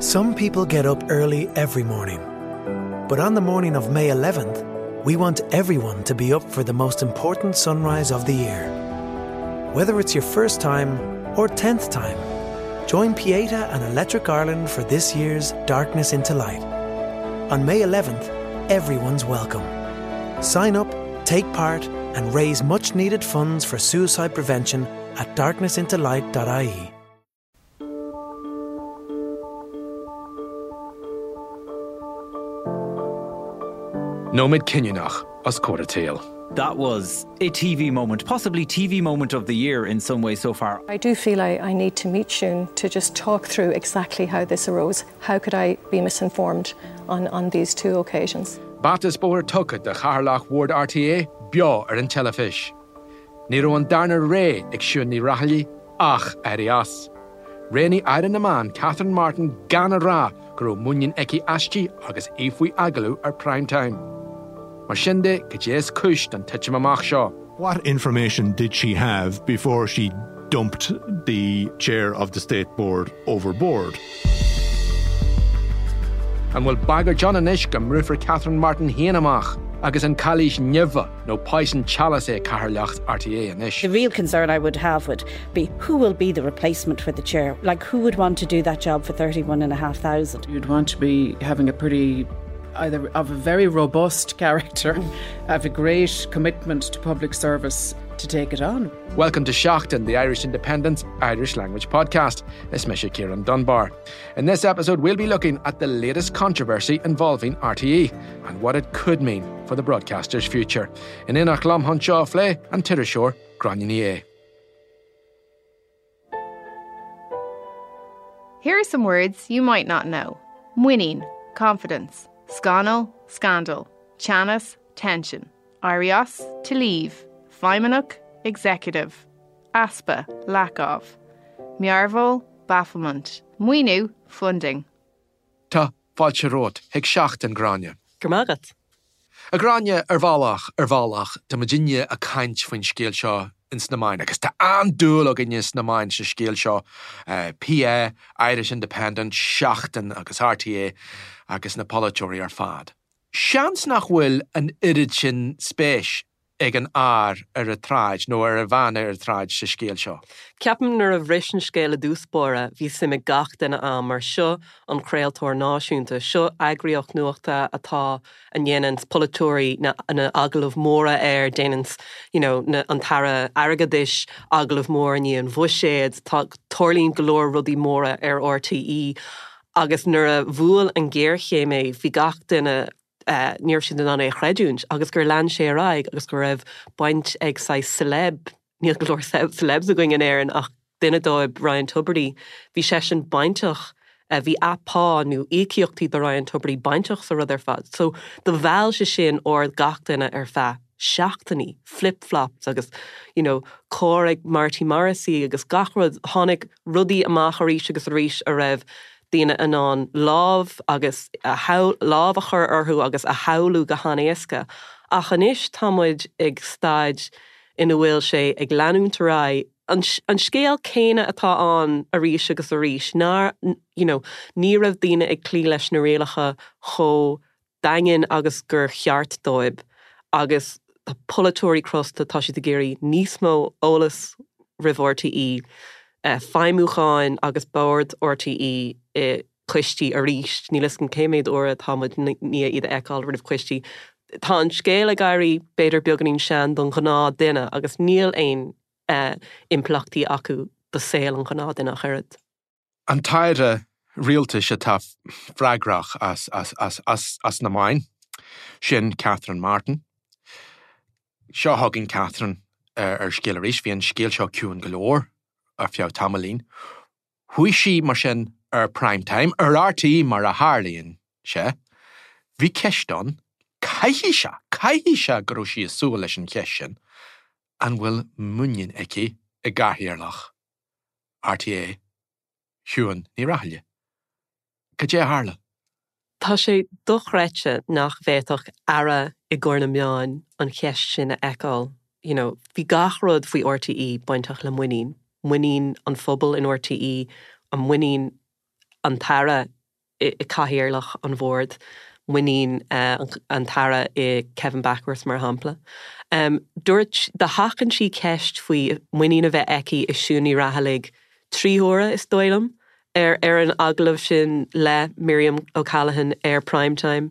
Some people get up early every morning. But on the morning of May 11th, we want everyone to be up for the most important sunrise of the year. Whether it's your first time or 10th time, join Pieta and Electric Ireland for this year's Darkness into Light. On May 11th, everyone's welcome. Sign up, take part, and raise much needed funds for suicide prevention at darknessintolight.ie. Nóiméad cinniúnach os comhair an tsaoil. That was a TV moment, possibly TV moment of the year in some way so far. I do feel I, I need to meet Siún to just talk through exactly how this arose. How could I be misinformed on, on these two occasions? Bata is bóthar tugtha do chathaoirleach Bhord RTÉ beo ar an teilifís. Ní raibh an darna rogha ag Siún Ní Raghallaigh ach éirí as. Roghnaigh Aire na Meán Catherine Martin gan a rá go raibh muinín aici aisti agus í faoi agallamh ar Prime Time. Mar sin de, cad é is cúis don titim amach seo? What information did she have before she dumped the chair of the state board overboard? An bhfuil bagairt ann anois go mbrúfar Catherine Martin féin amach agus an cailís nimhe nó poison chalice é cathaoirleacht RTÉ anois? The real concern I would have would be who will be the replacement for the chair? Like who would want to do that job for 31,500? You'd want to be having a pretty either of a very robust character, have a great commitment to public service to take it on. Welcome to Seachtain, the Irish Independent's Irish language podcast. Is mise Ciarán Dunbar. In this episode, we'll be looking at the latest controversy involving RTÉ and what it could mean for the broadcaster's future. In éineacht liom chun seo a phlé an t-iriseoir Gráinne Ní Aodha. Here are some words you might not know. Muinín, confidence, scannal, scandal, teannas, tension, éirí as, to leave, feidhmeannach, executive, easpa, lack of, mearbhall, bafflement, maoiniú, funding. Tá fáilte romhat chuig Seachtain, Gráinne. Go raibh maith agat. A Ghráinne, ar bhealach, ar bhealach, tá muidinne ag caint faoin scéal seo ins na meáin agus tá an-dúil againne sna meáin sa scéal seo, PI, Irish Independent, Seachtain agus RTÉ agus na polaiteoirí ar fad. Seans nach bhfuil an oiread sin spéis ag an fhear ar an tsráid nó ar an bhean ar an tsráid sa scéal seo. Ceapaim nuair a bhris an scéal i dtús báire bhí suim ag gach duine ann mar seo an craoltóir náisiúnta, seo eagraíocht nuachta atá, a ndéananns polaiteoirí na na agallaimh mhóra air, déananns you know na an tAire Airgeadais agallamh mór i ndiaidh an bhuiséid, tá, tarlaíonn go leor rudaí móra ar RTÉ agus nuair a bhuail an ghéarchéim é bhí gach duine ní raibh siad in ann é a chreidiúint agus gur lean sé ar aghaidh agus go raibh baint ag saghas celeb, níl go leor celebs againn in Éirinn ach duine dóibh, Ryan Tubridy, bhí seisean bainteach, bhí a pá nó íocaíochtaí do Ryan Tubridy bainteach sa rud ar fad. So do mheall sé sin aird gach duine ar feadh seachtainí, flip flops agus you know carr ag Marty Morrissey agus gach rud, tháinig rudaí amach arís agus arís a raibh daoine in ann lámh agus lámh a chur orthu agus a shamhlú go han-éasca. Ach anois tá muid ag staid ina bhfuil sé ag leanúint ar aghaidh, an scéal céanna atá ann arís agus arís, nár, you know, ní raibh daoine ag cloí leis na rialacha chomh daingean agus gur cheart dóibh agus tá polaiteoirí crosta, tá siad ag iarraidh níos mó eolas roimh RTÉ, feidhmiúcháin agus bord RTÉ i coistí arís, níl 'fhios agam cé mhéad uair atá muid i ndiaidh iad a fheiceáil roimh choistí. Tá an scéal ag éirí b'fhéidir beagáinín sean don ghnáth duine agus níl aon impleachtaí acu do saol an ghnáth duine ach oiread. An tAire Rialtais atá freagrach as na meáin, sin Catherine Martin. Seo chugainn Catherine ar scéal arís. Bhí an scéal seo ciúin go leor ar feadh tamaillín. Chuaigh sí, mar sin, ar Prime Time, ar RTÉ mar a tharlaíonn sé. Bhí ceist ann, caithfidh sé, caithfidh sé go raibh sí ag súil leis an cheist sin, an bhfuil muinín aici i gcathaoirleach RTÉ, Siún Ní Raghallaigh. Cad é a tharla? Tá sé dochreidte nach bhféadfadh Aire i gcomhair na meáin an cheist sin a fheiceáil. You know, bhí gach rud faoi RTÉ bainteach le muinín. Muinín an phobail in RTÉ, an muinín an tAire. i Cathaoirleach an Bhoird, muinín an tAire i Kevin Bakhurst, mar shampla. Dúirt, do sheachain sí ceist faoi muinín a bheith aici i Siún Ní Raghallaigh 3 huaire, is dóigh liom, ar ar an agallamh sin le Miriam O'Callaghan ar Prime Time.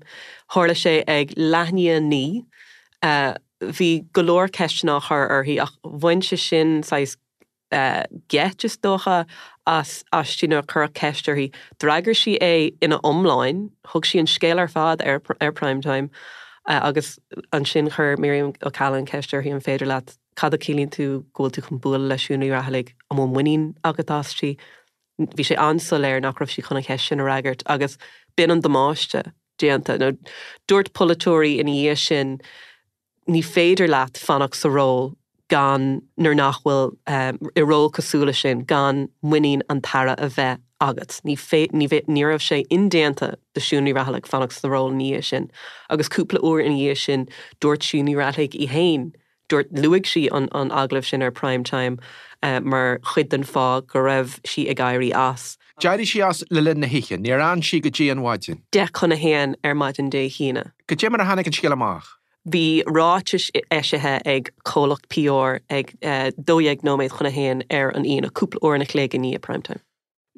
Tharla sé ag leath i ndiaidh 9. Bhí go leor ceisteanna á chur uirthi ach bhain sé sin saghas geit, is dócha, as aisti nuair a cuireadh ceist uirthi. D'fhreagair sí é ina iomláin, thug sí an scéal ar fad ar ar Prime Time agus ansin chuir Miriam O'Callaghan ceist uirthi an féidir leat, cad a chiallaíonn tú go bhfuil tú chun bualadh le Siún Ní Raghallaigh, an bhfuil muinín agat aisti? Bhí sé an-soiléir nach raibh sí chun an cheist sin a fhreagairt agus b'in an damáiste déanta. Nó dúirt polaiteoirí ina dhiaidh sin, ní féidir leat fanacht sa ról gan, nuair nach bhfuil, i ról cosúil leis sin, gan muinín an tAire a bheith agat. Ní ní ní raibh sé indéanta do Siún Ní Raghallaigh fanacht sa ról ina dhiaidh sin. Agus cúpla uair ina dhiaidh sin, dúirt Siún Ní Raghallaigh í féin, dúirt, luaigh sí an an agallamh sin ar Prime Time mar chuid den fáth go raibh sí ag éirí as. D'éirigh sí as le linn na hoíche, níor fhan sí go dtí an mhaidin. 10 chun a haon ar maidin Dé hAoine. Cad é mar a tháinig an scéal amach? Bhí ráitis eisithe ag comhlacht PR ag 12 nóiméad chun a haon ar an Aoine, cúpla uair an chloig i ndiaidh Prime Time.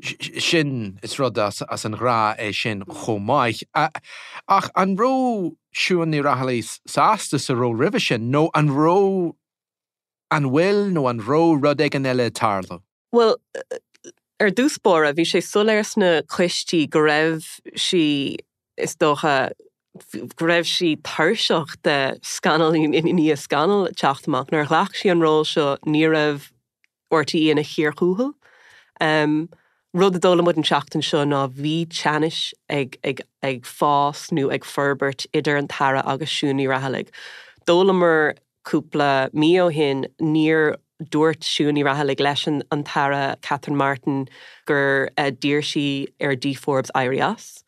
Sin, is rud as an ghnáth é sin chomh maith. Ach an raibh Siún Ní Raghallaigh sásta sa ról roimhe sin nó an raibh, an bhfuil nó an raibh rud éigin eile ag tarlú? Bhuel, ar dtús báire, bhí sé soiléir sna coistí go raibh sí, is dócha, go raibh sí tuirseach de scannal i ndiaidh scannail ag teacht amach. Nuair a ghlac sí an ról seo, ní raibh RTÉ ina chíor thuathail. Rud a d'fhoghlaim muid an tseachtain seo ná bhí teannas ag ag ag fás nó ag forbairt idir an tAire agus Siún Ní Raghallaigh. D'fhoghlamar Cúpla mí ó shin, níor dúirt Siún Ní Raghallaigh leis an tAire Catherine Martin gur d'iarr sí ar Dee Forbes éirí as.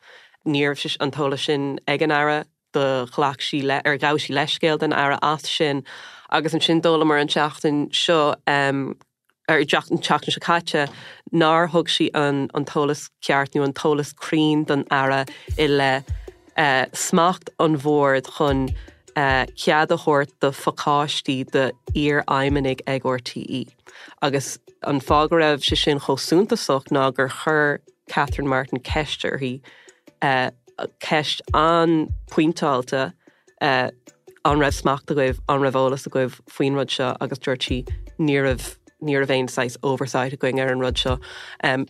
Ní raibh an t-eolas sin ag an Aire, do ghlac sí le, ar ghabh sí leithscéal don Aire as sin. Agus ansin d'fhoghlamar an tseachtain seo, ar an tseachtain seo caite, nár thug sí an t-eolas ceart nó an t-eolas cruinn don Aire i leith smacht an Bhoird chun cead a thabhairt do phacáistí d'iarfheidhmeannaigh ag RTÉ. Agus an fáth go raibh sé sin chomh suntasach ná gur chuir Catherine Martin ceist uirthi, ceist an-phointeáilte, An raibh smacht agaibh, an raibh eolas agaibh faoin rud seo? Agus dúirt sí, ní raibh, ní raibh aon saghas oversight againn ar an rud seo.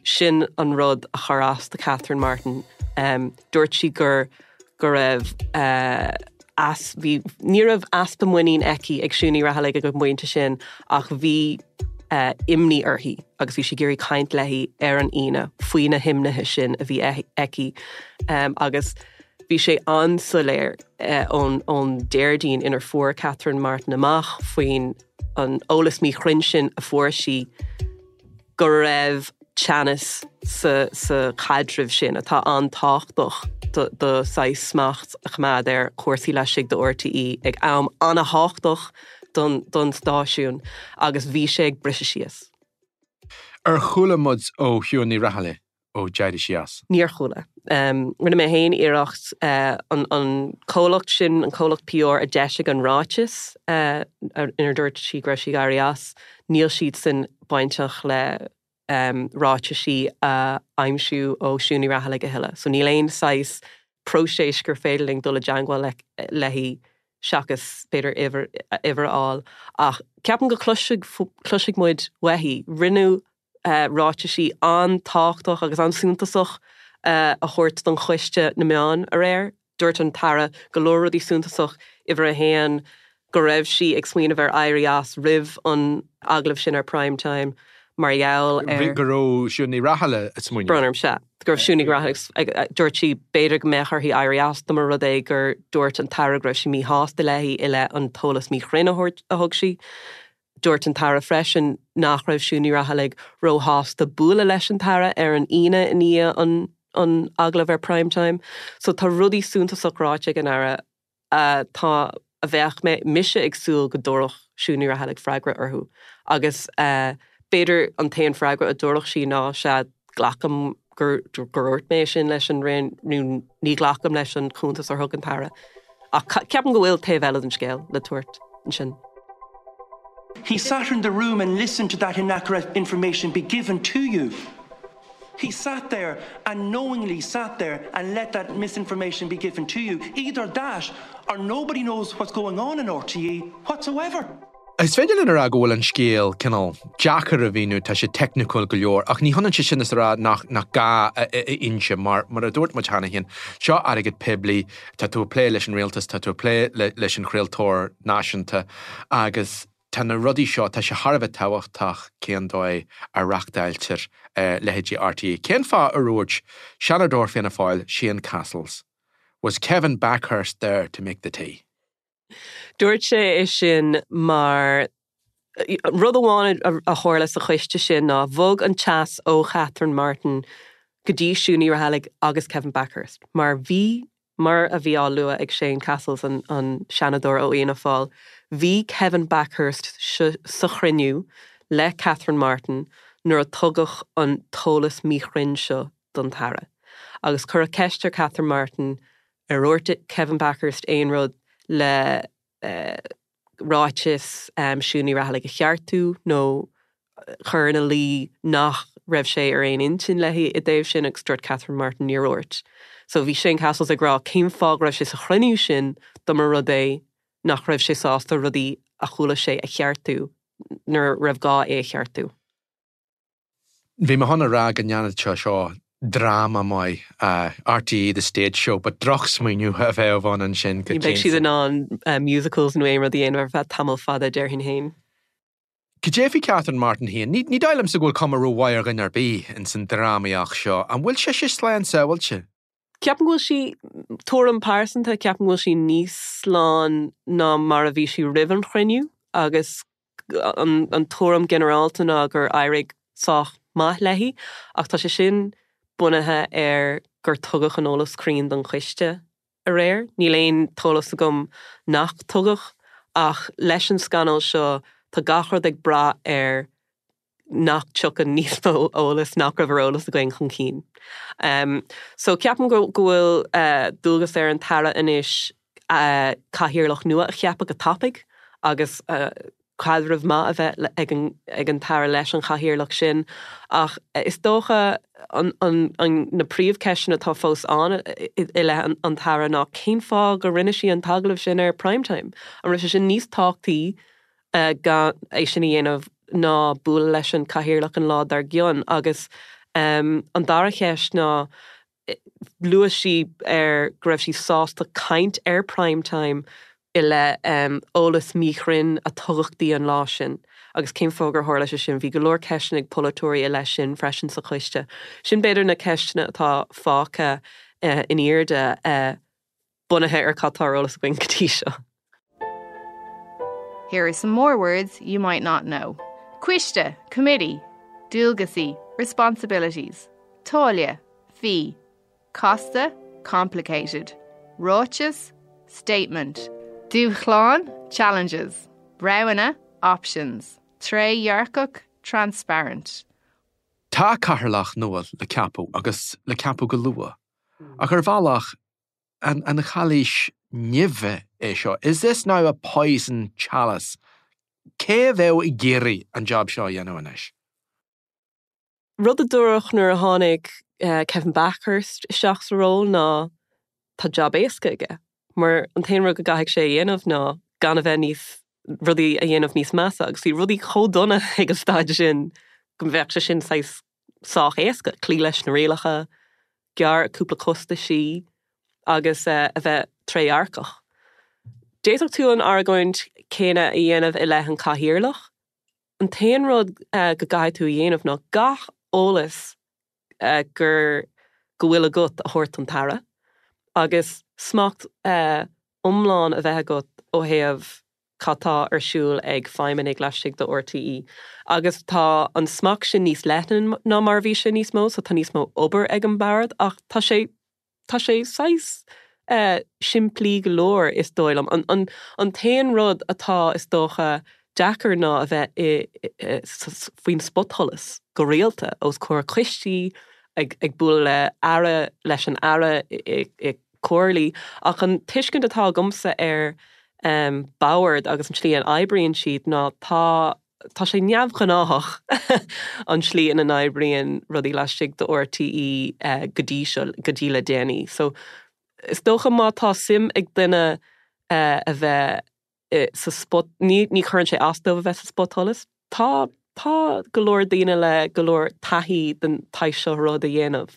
Sin an rud a chuir as do Catherine Martin. Dúirt sí gur, go raibh as, bhí, ní raibh easpa muinín aici ag Siún Ní Raghallaigh ag an bpointe sin ach bhí imní uirthi agus bhí sí ag iarraidh caint léi ar an Aoine faoi na himnithe sin a bhí aici. Agus Bhí sé an-soiléir ón Déardaoin inar fuair Catherine Martin amach faoin an eolas míchruinn sin a fuair sí go raibh teannas sa sa chaidreamh sin atá an-tábhachtach do do saghas smacht a choimeád ar chúrsaí laistigh de RTÉ ag am an-thábhachtach don don stáisiún agus bhí sé ag briseadh síos. Ar chuala muid ó Shiún Ní Raghallaigh ó d'éirigh sí as? Níor chuala. Rinne mé féin iarracht an comhlacht sin, an comhlacht PR a d'eisigh an ráiteas inar dúirt sí go raibh sí ag éirí as, níl siadsan bainteach le ráitisí a aimsiú ó Siún Ní Raghallaigh a thuilleadh. So níl aon saghas próiseas gur féidir linn dul i dteangmháil léi seachas b'fhéidir uimhir a fháil. Ach ceapaim go cloisfidh muid uaithi. Rinneadh ráitisí an-tábhachtach agus an-suntasach a thabhairt don Choiste na Meán aréir. Dúirt an tAire go leor rudaí suntasach, uimhir a haon, go raibh sí ag smaoineamh ar éirí as roimh an agallamh sin ar Prime Time mar gheall ar. Go raibh Siún Ní Raghallaigh ag smaoineamh. Brón orm, sea. Go raibh Siún Ní Raghallaigh ag, dúirt sí b'fhéidir go mbeadh uirthi éirí as dá mba rud é gur dúirt an tAire go raibh sí míshásta léi i leith an t-eolas míchruinn a thug sí. Dúirt an tAire freisin nach raibh Siún Ní Raghallaigh róshásta bualadh leis an tAire ar an Aoine i ndiaidh an agallaimh ar Prime Time. So tá rudaí suntasach ráite ag an Aire atá, a bheadh mé, mise ag súil go dtabharfadh Siún Ní Raghallaigh freagra orthu. Agus b'fhéidir an t-aon freagra a dtabharfadh sí ná sea, glacaim gur dhúirt mé sin leis an Roinn nó ní ghlacaim leis an chuntas a thug an tAire. Ach ceapaim go bhfuil taobh eile den scéal le tabhairt ansin. He sat in the room and listened to that inaccurate information be given to you. He sat there and knowingly sat there and let that misinformation be given to you. Either that or nobody knows what's going on in RTE whatsoever. Is féidir linn a rá go bhfuil an scéal cineál deacair a mhíniú, tá sé teicniúil go leor, ach ní hionann sé sin is a rá nach nach gá a inse, mar mar a dúirt muid cheana féin, seo airgead poiblí, tá tú ag plé leis an rialtas, tá tú ag plé leis an chraoltóir náisiúnta agus tá na rudaí seo, tá sé thar a bheith tábhachtach cén dóigh a reachtáiltear leithéidí RTÉ. Cén fáth ar dhúirt Seanadóir Fianna Fáil, Shane Cassells, Was Kevin Bakhurst there to make the tea? Dúirt sé é sin mar rud amháin a tharla sa choiste sin ná bhog an teas ó Catherine Martin go dtí Siún Ní Raghallaigh agus Kevin Bakhurst mar bhí, mar a bhí á lua ag Shane Cassells, an Seanadóir ó Fhianna Fáil, bhí Kevin Bakhurst sa chruinniú le Catherine Martin nuair a tugadh an t-eolas míchruinn seo don tAire. Agus cuireadh ceist ar Catherine Martin Ar dhúirt Kevin Bakhurst aon rud le ráiteas Siún Ní Raghallaigh a cheartú nó chur ina luí nach raibh sé ar aon intinn léi i dtaobh sin agus dúirt Catherine Martin níor dhúirt. So bhí Shane Cassells ag rá cén fáth go raibh sé sa chruinniú sin dá mba rud é nach raibh sé sásta rudaí a chuala sé a cheartú nuair a raibh gá é a cheartú. Bhí mé chun a rá go ndéanfadh sé seo dráma maith, RTÉ The Stage Show, but drochsmaoineamh a bheadh ann ansin go Ní bheidh siad in ann musicals nó aon rud a dhéanamh ar feadh tamall fada, déarfainn féin. Cad é faoi Catherine Martin féin? Ní dóigh liomsa go bhfuil cuma rómhaith ar dhuine ar bith ins an drámaíocht seo. An bhfuil sise slán sábháilte? Ceapaim go bhfuil sí, tuairim pearsanta, ceapaim go bhfuil sí níos slán ná mar a bhí sí roimh an chruinniú agus an tuairim ginearálta ná gur éirigh sách maith léi, ach tá sé sin bunaithe ar gur tugadh an eolas cruinn don choiste aréir. Níl aon t-eolas agam nach tugadh, ach leis an scannal seo tá gach rud ag brath ar nach dtiocfaidh níos mó eolas nach raibh ar eolas againn chun cinn. So ceapaim go bhfuil dualgas ar an tAire anois cathaoirleach nua a cheapadh go tapaidh agus caidreamh maith a bheith ag an tAire leis an chathaoirleach sin. Ach is dócha na príomhcheisteanna atá fós ann i leith an tAire ná cén fáth go rinne sí an t-agallamh sin ar Prime Time? An raibh sé sin níos tábhachtaí gan é sin a dhéanamh ná bualadh leis an chathaoirleach an lá dár gcionn? Agus an dara cheist ná Luaigh sí ar go raibh sí sásta caint ar Prime Time i leith eolas míchruinn a tugadh di an lá sin agus cén fáth gur tharla sé sin. Bhí go leor ceisteanna ag polaiteoirí i leith sin freisin sa choiste. Sin b'fhéidir na ceisteanna atá fágtha in airde bunaithe ar cad tá ar eolas againn go dtí seo. Here are some more words you might not know. Coiste, committee, Dualgaisí, responsibilities, Táille, fee, Casta, complicated, Ráiteas, statement, Dúshláin, challenges, Roghanna, options, Trédhearcach, transparent. Tá cathaoirleach nua le ceapadh agus le ceapadh go luath. Ach ar bhealach, an chailís nimhe é seo? Is this now a poison chalice? Cé a bheadh ag iarraidh an job seo a dhéanamh anois? Rud a dúradh nuair a tháinig Kevin Bakhurst isteach sa ról ná tá jab éasca aige mar an t-aon rud go gcaithfidh sé a dhéanamh ná gan a bheith níos, rudaí a dhéanamh níos measa agus bhí rudaí chomh dona ag an staid sin go mbeadh sé sin saghas sách éasca, cloí leis na rialacha, gearr cúpla costaisí agus a bheith trédhearcach. D'fhéadfadh tú an argóint céanna a dhéanamh i leith an cathaoirleach. An t-aon rud go gcaithfidh tú a dhéanamh ná gach eolas gur go bhfuil agat a thabhairt don tAire agus smacht iomlán a bheith agat ó thaobh cad tá ar siúl ag feidhmeannaigh laistigh de RTÉ. Agus tá an smacht sin níos leithne ná mar a bhí sé níos mó, so tá níos mó obair ag an bord ach tá sé, tá sé saghas simplí go leor is dóigh liom. An, an, an t-aon rud atá is dócha deacair ná a bheith i, faoin spotsholas go rialta os comhair coistí. ag ag bualadh le aire leis an aire i comhairlí ach an tuiscint atá agamsa ar bord agus an tslí a n-oibríonn siad ná tá tá sé neamhghnáthach an tslí ina n-oibríonn rudaí laistigh de RTÉ go dtí seo, go dtí le déanaí. So is dócha má tá suim ag duine a bheith sa spot, ní ní chuireann sé as dóibh a bheith sa spotsholas. Tá tá go leor daoine le go leor taithí den tsaghas seo rud a dhéanamh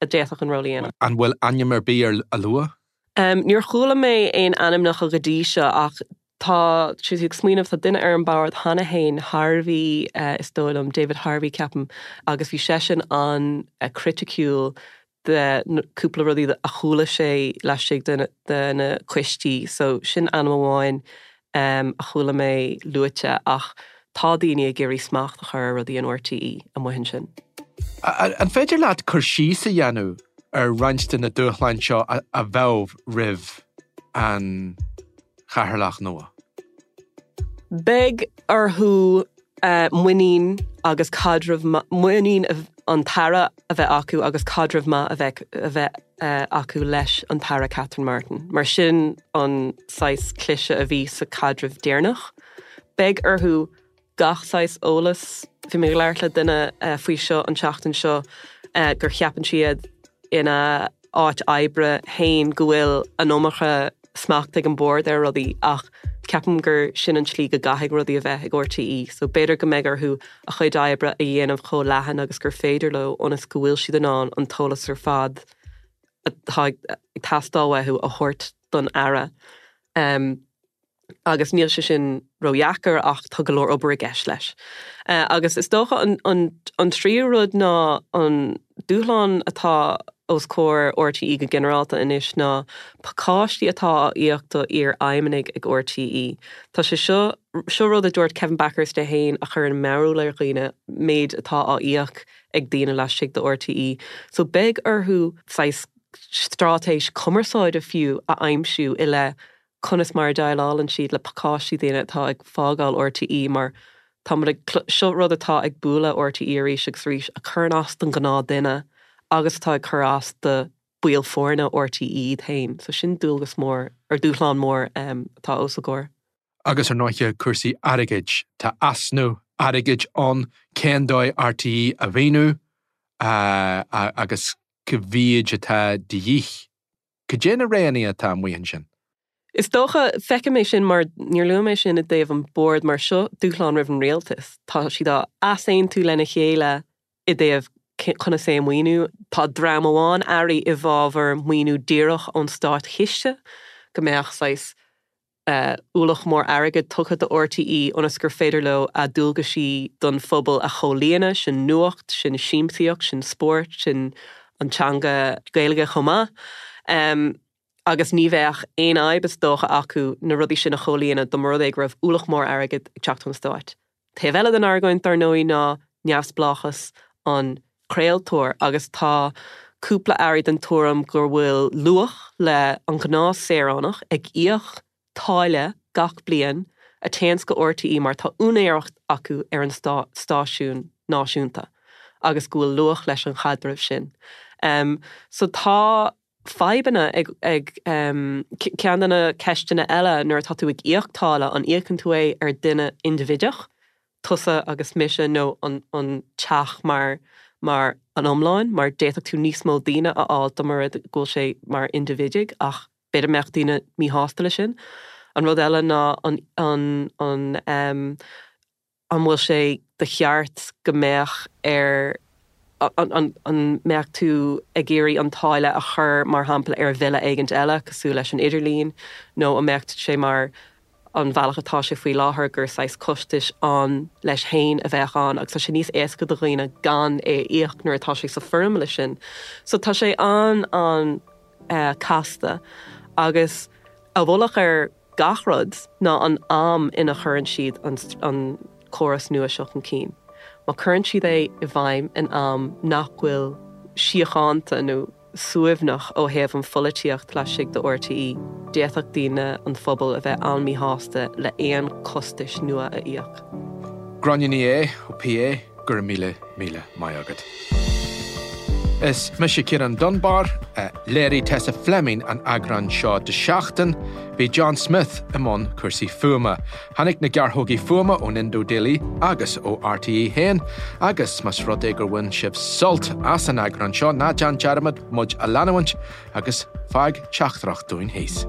a d'fhéadfadh an ról a dhéanamh. An bhfuil ainm ar bith á lua? Níor chuala mé aon ainmneacha go dtí seo ach tá sé ag smaoineamh, tá duine ar an bord cheana féin, Harvey is dóigh liom, David Harvey ceapaim, agus bhí seisean an-chriticiúil de cúpla rudaí a chuala sé laistigh de na coistí so sin ainm amháin a chuala mé luaite ach tá daoine ag iarraidh smacht a chur ar rudaí in RTÉ amuigh ansin. An féidir leat cur síos a dhéanamh ar roinnt de na dúshláin seo a bheadh roimh an Chathaoirleach nua? Beidh orthu muinín agus caidreamh, muinín an tAire a bheith acu agus caidreamh maith a bheith a bheith acu leis an tAire Catherine Martin, mar sin an saghas cliseadh a bhí sa chaidreamh deireanach. Beidh orthu gach saghas eolas. Bhí mé ag labhairt le duine faoi seo an tseachtain seo gur cheapann siad ina áit oibre féin go bhfuil an iomarca smacht ag an bord ar rudaí ach ceapaim gur sin an tslí go gcaithfidh rudaí a bheith ag RTÉ so b'fhéidir go mbeidh orthu a chuid oibre a dhéanamh chomh leathan agus gur féidir leo ionas go bhfuil siad in ann an t-eolas ar fad atá ag teastáil uathu a thabhairt don Aire. Agus níl sé sin ródheacair ach tá go leor obair i gceist leis. Agus is dócha an tríú rud ná an dúshlán atá os comhair RTÉ go ginearálta anois ná pacáistí atá á íoc do iar-fheidhmeannaigh ag RTÉ. Tá sé seo, seo rud a dúirt Kevin Bakhurst é féin a chuireann mearbhall ar dhaoine, méid atá á íoc ag daoine laistigh de RTÉ. So beidh orthu saghas straitéis cumarsáide fiú a aimsiú i leith conas mar a dhéileálann siad le pacáistí daoine atá ag fágáil RTÉ mar tá muid ag, seo rud atá ag bualadh RTÉ arís agus arís, a chuireann as don ghnáth duine agus atá ag cur as do baill foirne RTÉ iad féin. So sin dualgas mór, or dúshlán mór atá os a gcomhair. Agus ar ndóighe cúrsaí airgid, tá easnamh airgid ann, cén dóigh RTÉ a mhaoiniú agus cá mhéid atá de dhíth? Cad é na roghanna atá amuigh ansin? Is dócha, feicim é sin mar, níor luaigh mé sin i dtaobh an bord mar seo dúshlán roimh an rialtas. Tá siad á easaontú lena chéile i dtaobh conas é a mhaoiniú. Tá dream amháin airí i bhfabhar maoiniú díreach ón státchiste, go mbeadh saghas ualach mór airgid tugtha do RTÉ ionas gur féidir leo a ndualgaisí don phobal a chomhlíonadh, sin nuacht, sin siamsaíocht, sin spórt, sin an teanga Gaeilge chomh maith. Agus ní bheadh aon fhadhb is dócha acu na rudaí sin a chomhlíonadh dá mba rud é go raibh ualach mór airgid ag teacht ón stáit. Taobh eile den argóint, dar ndóigh, ná neamhspleáchas an chraoltóir agus tá cúpla airí den tuairim gur bhfuil luach le an ghnáth saoránach ag íoc táille gach bliain a téanns go RTÉ mar tá úinéireacht acu ar an stáisiún náisiúnta agus go bhfuil luach leis an chaidreamh sin. So tá fadhbanna ag ag ceann de na ceisteanna eile nuair atá tú ag íoc táille an íocann tú é ar duine indibhideach tusa agus mise nó an an teach mar mar an iomlán mar d'fhéadfadh tú níos mó daoine a fháil dá mba rud go bhfuil sé mar indibhidigh ach b'fhéidir mbeadh daoine míshásta leis sin. An rud eile ná an an an an bhfuil sé de cheart go mbeadh ar an an mbeadh tú ag iarraidh an táille a chur mar shampla ar bhille éigint eile cosúil leis an idirlíon nó an mbeadh sé mar an bhealach atá sé faoi láthair gur saghas costais ann leis féin a bheadh ann agus tá sé níos éasca do dhaoine gan é a íoc nuair atá sé sa foirmle sin. So tá sé an-an casta agus a mhullach ar gach rud ná an am ina chuireann siad an córas nua seo chun cinn. Má cuireann siad é i bhfeidhm in am nach bhfuil síochánta nó suaimhneach ó thaobh an pholaitíocht laistigh de RTÉ, d'fhéadfadh daoine, an phobal, a bheith an-míshásta le aon costais nua a íoc. Gráinne Ní Aodha ó PA, go raibh míle, míle maith agat. Is mise Ciarán Dunbar, léirigh Tessa Fleming an eagrán seo de Seachtain, bhí John Smith i mbun cúrsaí fuaime. Tháinig na gearrthógaí fuaime ón Indo Daily agus ó RTÉ 1 agus más rud é gur bhain sibh sult as an eagrán seo, ná déan dearmad muid a leanúint agus fág teachtaireacht dúinn thíos.